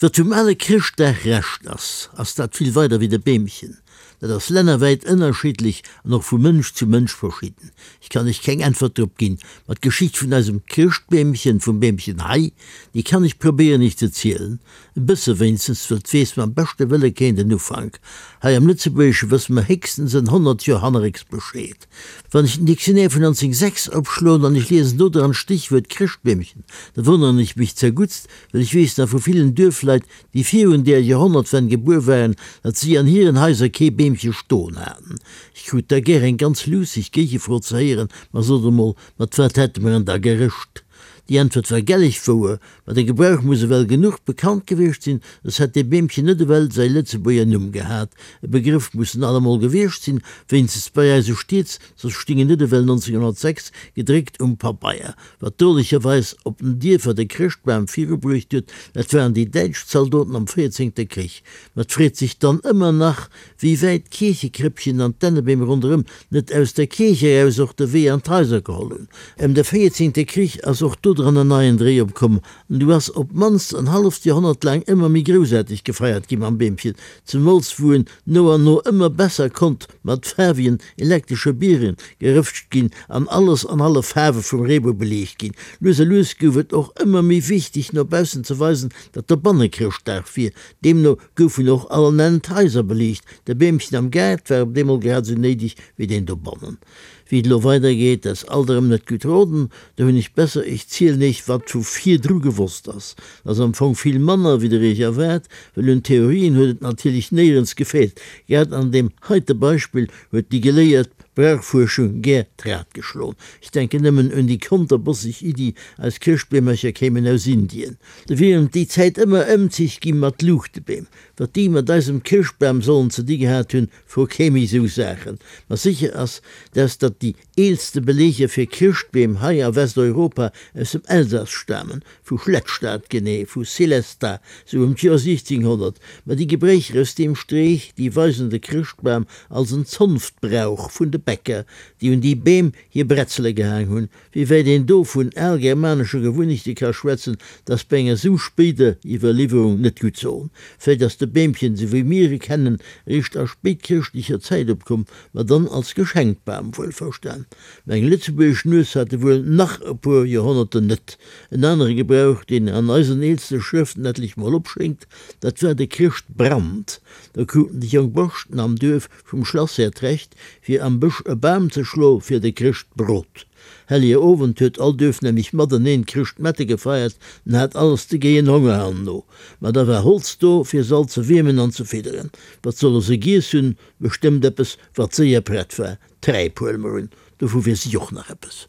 Wat vum ale Chrëschtdag Rescht ass, ass dat vill weider wéi de Beemchen. Dat ass lännerwäit ënnerschiddlech an och vu Mënsch zu Mënsch verschidden. Ech kann Iech keng Äntwert drop ginn, ma d'Geschicht vun eisem Chrëschtbeemchen, vum Beemchen hei, déi kann ech probéieren Iech ze zielen. E bësse wéinstens, well 't weess mam beschte Wëlle keen den Ufank. Hei am Lëtzebuergesche wësse mer héchstens en 100 Joer hannerrécks Bescheed. Wann ech den Dictionnaire vun 1906 opschloen an ech liesen do dran d'Stichwuert Chrëschtbeemchen, da wonneren ech mech zerguttst, well ech weess nach vu villen Duerfleit, déi virun där Joerhonnertwenn gebuer waren, datt si an hiren Haiser kee Beemche stoen haten. Ech krut da gär eng ganz luusseg Géigefro ze héieren, Ma sot emol, mat wat hätte mer en da gerëscht? Déi Äntwert war gelleg wouer, ma de Gebrauch muss ewell genuch bekannt gewiescht sinn, soss hätt dee Beemchen net ewell säi Lëtzebuerger Numm gehat. E Begrëff muss en allemol gewiescht sinn, wéinstens bei eise Stieds, soss sting en net ewell 1906 gedréckt um Pabeier. Wat drolecherweis op den Dierfer de Chrëschtbam virubruecht huet, dat waren déi däitsch Zaldoten am véierzéngte Krich. Ma 't freet sech dann ëmmer nach, wéi wäit d'Kierchekréppchen an d'Dännebeem ronderëm net aus der Kierch eraus och de Wee an d'Haiser geholl hunn. Ëm de véierzéngte Krich ass och dodran en neien Dréi opkomm an du ass op d'mannst en halleft Joerhonnert laang ëmmer méi groussaarteg gefeiert gi mam Beemchen, zemools wou en no an no ëmmer besser konnt mat faarwegen elektresche Bieren gerëftscht ginn an alles an alle Faarwe vum Reebou beliicht ginn. Lues a lues gouf et och ëmmer méi wichteg no baussen ze weisen, datt dobanne Chrëschtdag wier. Deemno goufen och all Enn d'Haiser beliicht. De Beemchen am Gaart war op deemol grad esou néideg wéi deen dobannen. Wéi et elo weider geet, dat ass alt erëm net gutt roden. Do hunn ech besser, ech zielen iech, wat vu virdru gewosst ass. Dat ass am Fong vill manner, wéi der iech erwaart, well un Theorien huet et natierlech néierens gefeelt. Grad an deem heite Beispill huet déi geléiert Brauchfuerschung gär d'Rad geschloen. Ech denken nëmmen un déi konterbosseg Iddi, eis Chrëschtbeemercher kéimen aus Indien. Do wieren déi Zäit ëmmer Ëmzich gi mat Luuchtebeem. Wat déi mat eisem Chrëschtbam sollen ze di gehat hunn, Fro kee méi sou Saachen. Ma sécher ass, dass datt déi eelste Beleeger fir Chrëschtbeem hei a Westeuropa aus dem Elsass stamen, vu Schlettstadt, genee vu Sélestat, sou ëm d'Joer 1600. Ma déi Gebréicher aus deem Streech, déi weisen de Chrëschtbam als en Zonftbrauch vun de Bäcker, déi un déi Beem hir Bretzele gehaang hunn. Wéi wäit een do vun algermanesche Gewunnechte ka schwätzen, dat ass bei enger sou spéider Iwwerliwwerung net gutt soen. Vläit ass de Beemchen, sou wéi mir e kennen, eréischt a spéitchrëschtlecher Zäit opkomm, ma dann als Geschenkbam wuelverstan. Mä eng lëtzebuergesch Nues hat e wuel nach e puer Joerhonnerten net. En anere Gebrauch, deen an eisen eelste Schrëften etlech mol opschéngt, dat war de Chrëschtbrand. Do kruten déi jonk Borschten am Duerf Vum Schlasshär d'Recht, fir am Bësch e Bam ze schlo fir de Chrëschtbrot. Hellege Owend huet all Duerf nämlech mateneen Chrëschtmette gefeiert an hat alles de géien Honger herno. Ma da war Holz do, fir se all ze wiermen an ze fidderen. Wat solle se giess hunn? Bestëmmt eppes, wat séier prett war. Träip, huele mer un, dovu weess ech och nach eppes.